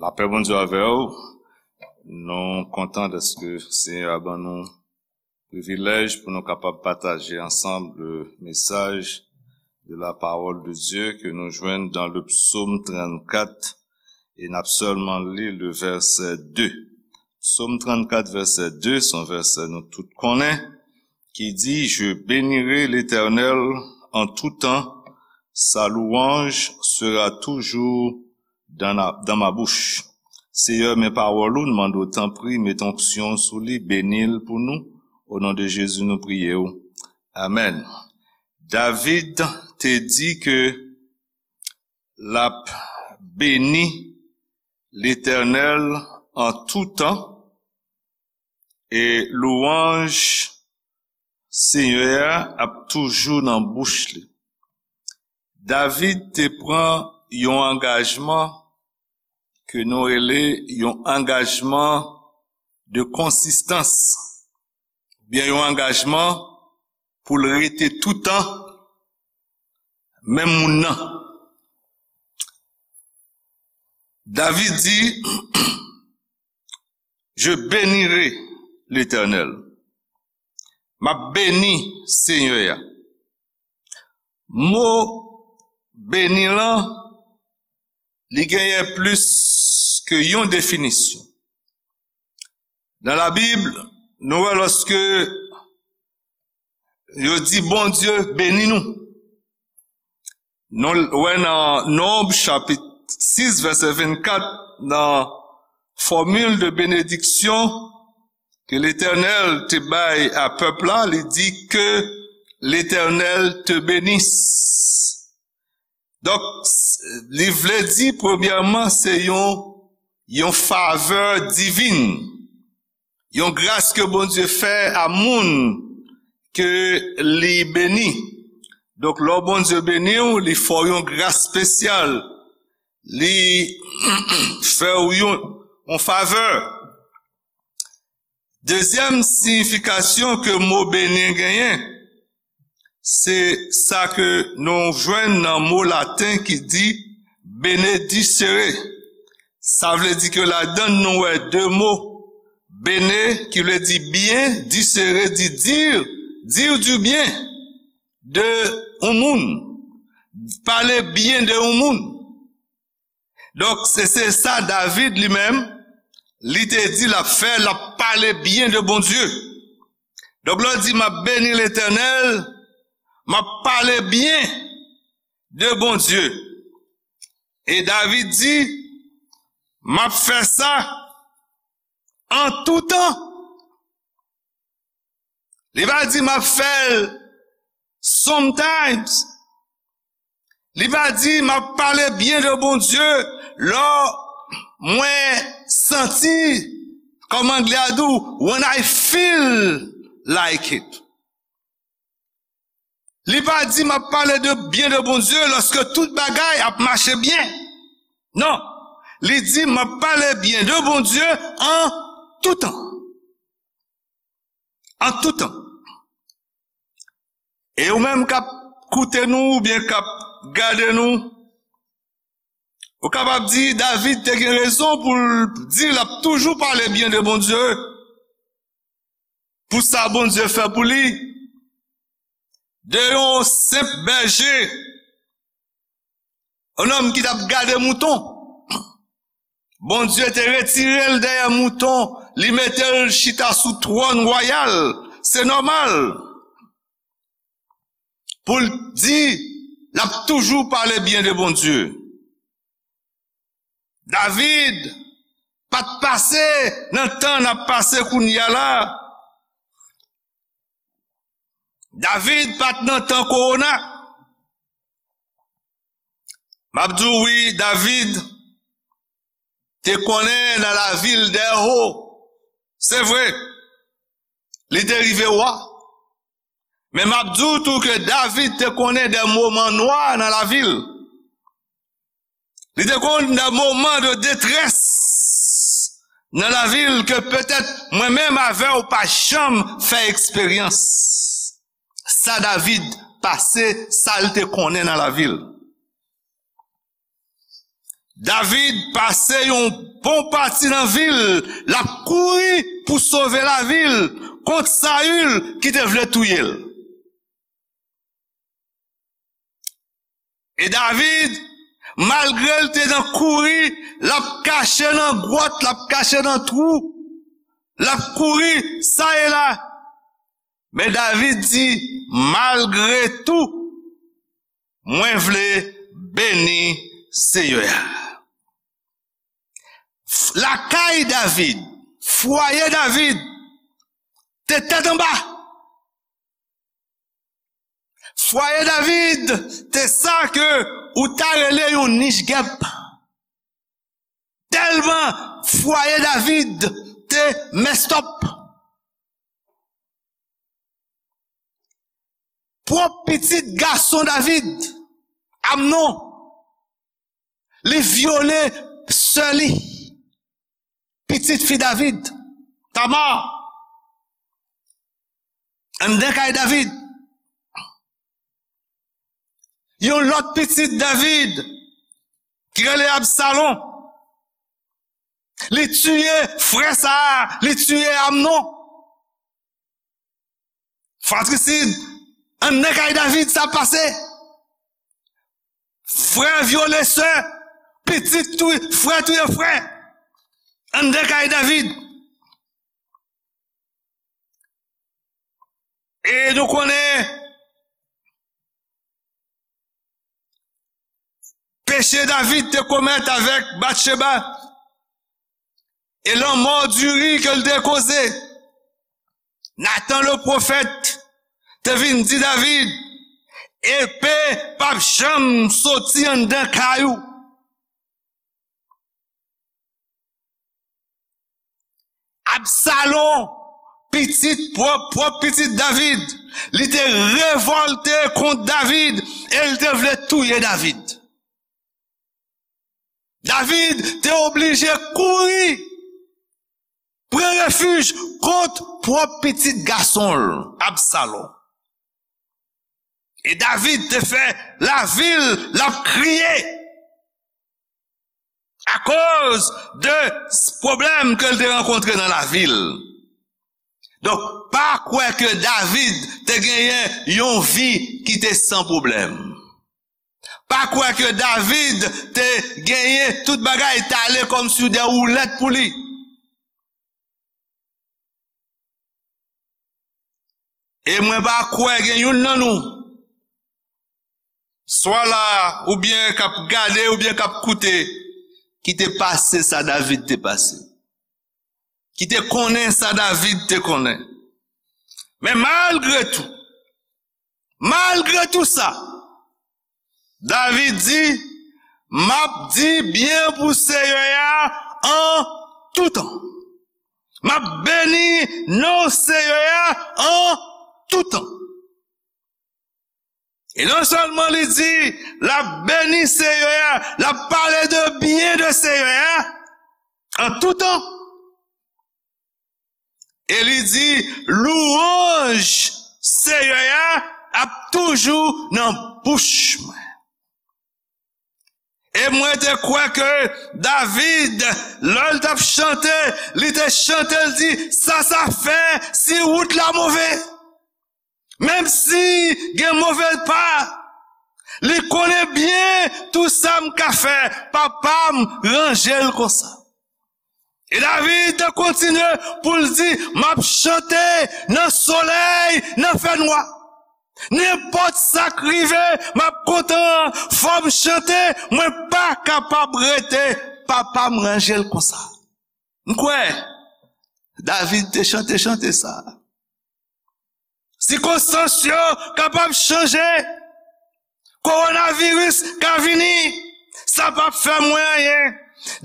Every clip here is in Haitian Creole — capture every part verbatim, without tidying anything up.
Lapè Bondye avè w. Nou kontan dèske Senyè a ban nou privilèj pou nou kapab pataje ansanm le mesaj de la parole de Dieu ke nou jwenn dans le psaume trannkat, e n ap sèlman li le vèsè de. Psaume trannkat, vèsè de, se yon vèsè nou tout konnen, ki di, Je bénirai l'Éternel en tout temps, sa louange sera toujours dans la, dans ma bouche. Seyè, men pawòl ou, n mande w, tanpri, met onksyon sou li, beni l pou nou. O non de Jezi, nou priye w. Amèn. David te di ke l ap beni Letènèl an tou tan, e lwanj Senyè a ap toujou nan bouch li. David te pran yon angajman ke nou rele yon angajman de konsistans, oubyen yon angajman pou l rete toutan menm moun nan. David di, Je bénirai l'Éternel. M ap beni Senyè a. Mo beni lan, li genyen plis ke yon definisyon. Nan Labib, nou wè lòske yo di Bondye beni nou. Nou wè nan Nonb chapit sis, vèsè vennkat, nan fòmil de benediksyon ke Letènèl te bay a pèp la, li di, Que l'Éternel te bénisse. Donk, s-, li vle di, premyèman, se yon, yon favè divin, yon gras ke Bondye fè a moun ke li beni. Donk, lè Bondye beni w, li fè w yon gras espesyal, li fè w yon, yon favè. Dezyèm siyifikasyon ke mo beni genyen, se sa ke nou jwenn nan mo laten ki di benedicere. Sa vle di ke ladan l nou wè de mo, bene ki vle di byen, dicere di dire, dire du bien de yon moun, pale byen de yon moun. Donk, se, se sa David li menm, li te di l ap fè, l ap pale byen de Bondye. Donk, lè w di, "M ap beni Letènèl," m ap pale byen de Bondye. E David di, "M ap fè sa an tou tan." Li pa di, "M ap fè l sometimes." Li pa di, "M ap pale byen de Bondye lè mwen santi," kòm anglè a di w, "when I feel like it." Li pa di, "M ap pale de byen de Bondye lòske tout bagay ap mache byen." Non. Li di, "M ap pale byen de Bondye an tou tan." An tou tan. E ou menm k ap koute nou oubyen k ap gade nou, ou kapab di David te gen rezon pou l di l ap toujou pale byen de Bondye, pou sa Bondye fè pou li. De yon senp bèje, yon nonm ki t ap gade mouton. Bondye te retire l dèyè mouton, li mete l chita sou twòn wayal. Se nòmal pou l di l ap toujou pale byen de Bondye. David pa t pase nan tan n ap pase kounye a la. David pa t nan tan kowona. M ap di w wi, David te konnen nan lavil dè ho. Se vre, li te rive wa. Men m ap di w tou ke David te konnen de moman nwa nan lavil. Li te konn de moman de detrès nan lavil ke petèt mwen menm avè w pa janm fè eksperyans. Sa David pase, sa l te konnen nan lavil. David pase yon bon pati nan vil, l ap kouri pou sove lavi l kont Sayil ki te vle touye l. E David, malgre l te nan kouri, l ap kache nan gwòt, l ap kache nan twou, l ap kouri sa e la. Men David di, malgre tou, mwen vle beni Seyè a. Lakay David, fwaye David, te tèt anba. Fwaye David te sa ke ou ta rele yon nich gèp. Tèlman fwaye David te mèstòp. Pwòp pitit gason David, Amnon, li vyole sè li, pitit fi David, Tamar, anndan kay David. Yon lòt pitit David, ki rele Absalon, li tiye frè sa a, li tiye Amnon. Fratrisid, anndan kay David sa pase. Frè vyole sè, pitit touye, frè touye frè. Anndan kay David. E nou konnen peche David te komèt avèk Batcheba e lanmò diri ke l te koze. Natan le pwofèt te vin di David, epe p ap janm soti anndan kay ou. Absalon, pitit pwòp, pwòp pitit David, li te revòlte kont David e l te vle touye David. David te oblije kouri, pran refij kont pwòp pitit gason l, Absalon. E David te fè lavi l, l ap kriye akoz de s-, pwoblèm ke l te rankontre nan lavi l. Donk, pa kwè ke David te genyen yon vi ki te san pwoblèm. Pa kwè ke David te genyen tout bagay t ale kòmsi de woulèt pou li. E mwen pa kwè gen youn nan nou, swa la, oubyen k ap gade, oubyen k ap koute, ki te pase sa David te pase, ki te konnen sa David te konnen. Men malgre tou, malgre tou sa, David di, m ap di byen pou Seyè a an tou tan. M ap beni non Seyè a an tou tan. E non sèlman li di, l ap beni Seyè a, l ap pale de byen de Seyè a an tou tan. E li di, lwanj Seyè a ap toujou nan bouch mwen. E mwen te kwè ke David, lè l t ap chante, li te chante, l di, sa sa fè si wout la move? Menm si gen move pa, li konnen byen tou sa m ka fè, papa m ranje l konsa. E David te kontinye pou l di, m ap chante nan solèy, nan fènwa. Nenpòt sa k rive, m ap kontan, fò m chante, mwen pa kapab rete, papa m ranje l konsa. M kwè, David te chante chante sa. Sikonstans yo kapab chanje. Kowonaviris ka vini. Sa p ap fè mwen anyen.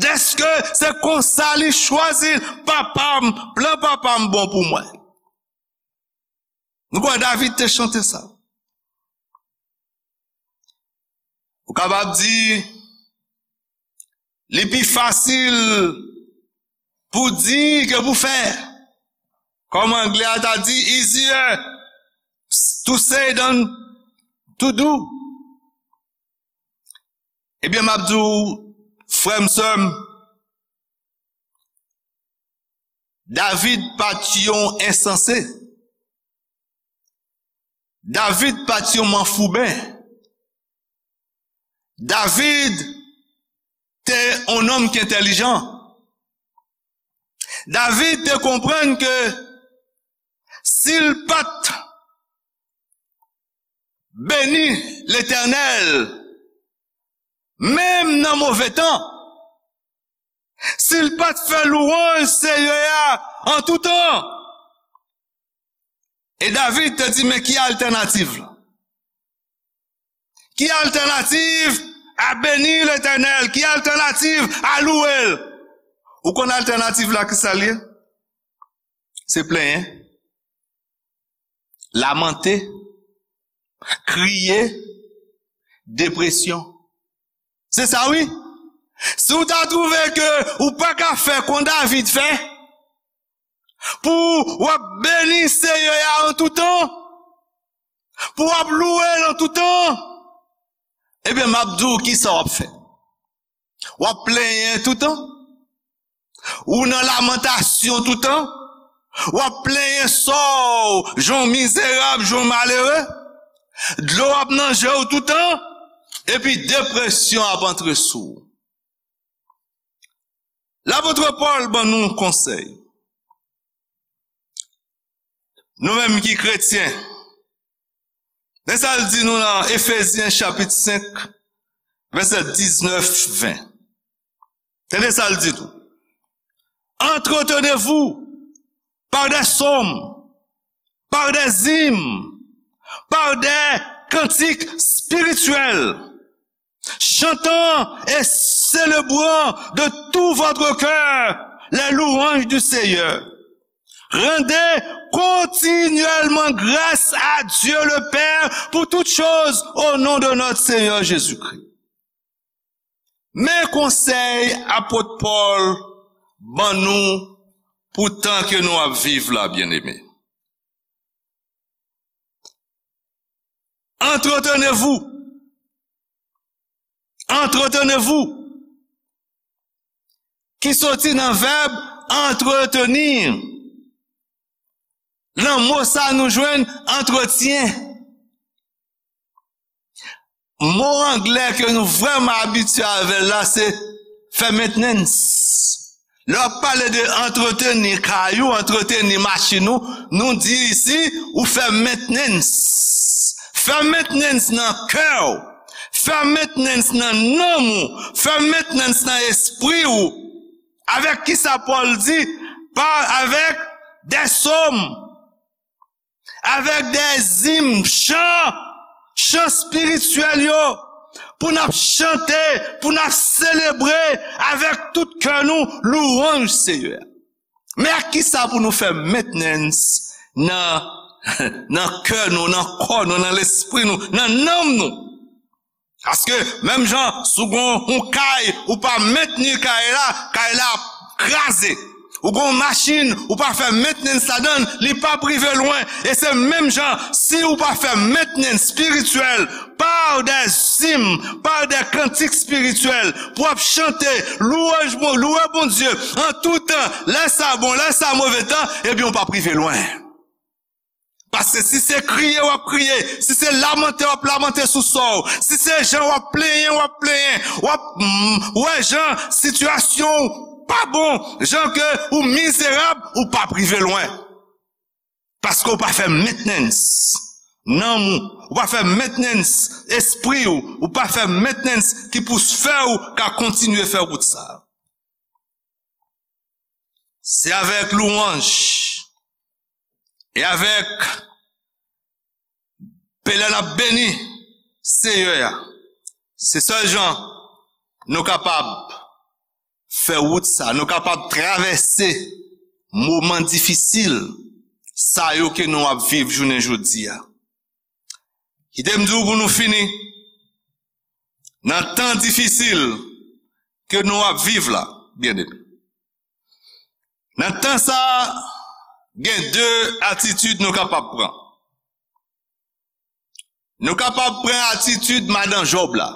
Dèske se konsa li chwazi l. Papa m, plan papa m bon pou mwen. Nou kwè David te chante sa? Ou kapab di, li pi fasil pou di ke pou fè. Kòm anglè a ta di, easier to say than to do. Ebyen, m ap di w, frè m, sè m, David pa t yon ensanse. David pa t yon manfouben. David te yon nonm ki entèlijan. David te konprann ke si l pa t beni Letènèl, menm nan move tan, si l pa t fè lwanj Seyè a an tou tan. E David te di, men ki altènativ la? Ki altènativ a beni Letènèl? Ki altènativ a louwe l? Ou konn altènativ la, ki sa l ye? Se plenyen, lamante, kriye, depresyon. Se sa wi. Si w ta twouve ke ou pa ka fè kon David fè, pou w ap beni Seyè a an tou tan, pou w ap louwe l an tou tan, ebyen, m ap di w kisa w ap fè. W ap plenyen toutan. Ou nan lamantasyon toutan. W ap plenyen sò w, jan w mizerab, jan w malere. Dlo ap nan je w toutan. Epi depresyon ap antre sou w. Lapot Pòl ban nou konsèy. Nou menm ki kretyen, men sa l di nou nan Efezyen chapit senk, vèsè diznèf, ven. Tande sa l di tou. Entretenez-vous par des psaumes, par des hymnes, par des cantiques spirituels, chantant et célébrant de tout votre cœur les louanges du Seigneur. Rendez continuellement grâce à Dieu le Père pour toutes choses au nom de notre Seigneur Jésus-Christ. Men konsèy apot Pòl ban nou pou tan ke nou ap viv la, byeneme. Entretenez-vous. Entretenez-vous. Ki soti nan vèb entretenir. Nan mo sa nou jwenn antretyen. Mo anglè ke nou vrèman abitye avè l la, se fè maintenance. Lè w ap pale de antreteni kay ou, antreteni machin ou, nou di isi, ou fè maintenance. Fè maintenance nan kè w. Fè maintenance nan nanm ou. Fè maintenance nan espri ou. Avèk kisa Pòl di? Pa avèk des psaumes, avèk des hymnes, chan, chan espirityèl yo, pou n ap chante, pou n ap selebre avèk tout kè nou louwanj Seyè a. Men ak kisa pou nou fè maintenance nan, nan kè nou, nan kò nou, nan lespri nou, nan nanm nou? Paske, menm jan, si w gen yon kay, ou pa mentni kay la, kay la ap kraze. Ou gen yon machin, ou pa fè maintenance ladan l, li p ap rive lwen. E se menm jan, si ou pa fè maintenance spirityèl, par des hymnes, par des cantiques spirituels, pou w ap chante, louanj Bon, louwe Bondye, an tou tan, lè sa bon, lè sa move tan, ebyen, ou p ap rive lwen. Paske si se kriye w ap kriye, si se lamante w ap lamante sou sò w, si se jan w ap plenyen w ap plenyen, w ap, mm, wè jan sitiyasyon w pa bon, jan ke ou mizerab, ou p ap rive lwen. Paske w pa fè maintenance nanm ou, ou pa fè maintenance espri w, ou pa fè maintenance ki pou fè w ka kontinye fè wout sa. Se avèk louwanj e avèk pèlen n ap beni Seyè a. Se sèl jan nou kapab fè wout sa, nou kapab travèse moman difisil sa yo ke nou ap viv jounen jodi a. Kite m di w pou nou fini, nan tan difisil ke nou ap viv la, byeneme, nan tan sa a, gen de atitid nou kapab pran. Nou kapab pran atitid madan Jòb la.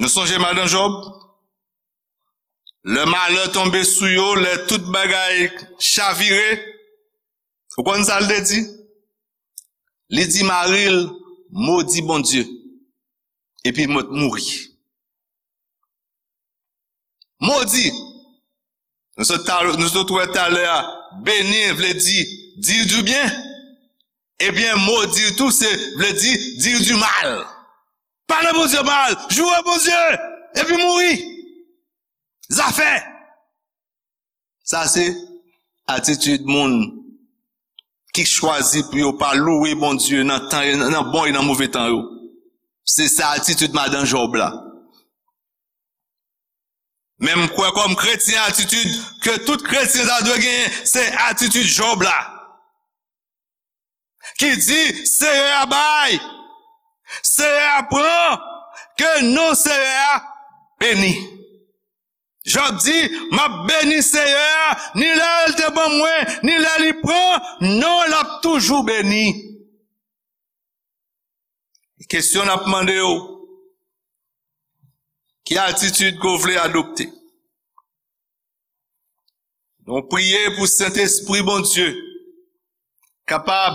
Nou sonje madan Jòb? Lè malè tonbe sou yo, lè tout bagay chavire, ou konn sa l te di? Li di mari l, "Modi Bondye, epi mwen mouri." Modi. Nou sot ta-, nou sot wè talè a, beni vle di dire du bien. Ebyen, modi tou se vle di dire du mal. Pale Bondye mal, joure Bondye, epi mouri. Zafè. Sa se atitid moun ki chwazi pou yo pa louwe Bondye nan tan, nan bon e nan move tan yo. Se sa atitid madan Jòb la. Men m kwè kòm kretyen, atitid ke tout kretyen ta dwe genyen, se atitid Jòb la. Ki di, Seyè a bay, Seyè a pran, ke non Seyè a beni. Jòb di, "M ap beni Seyè a, ni lè l te ban mwen, ni lè li pran, non l ap toujou beni." Kesyon n ap mande yo, ki atitid ke w vle adopte? Nou priye pou Sentespri Bondye kapab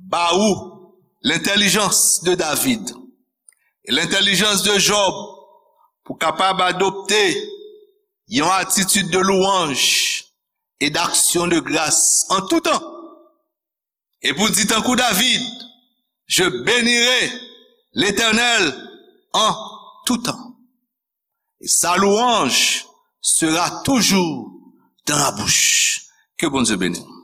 ba ou lentèlijans de David e lentèlijans de Jòb pou kapab adopte yon atitid de louanj e d'aksyon de gras an tou tan. E pou di tankou David, "Je bénirai l'Éternel en tout temps. Et sa louange sera toujours dans ma bouche." Ke Bondye beni w.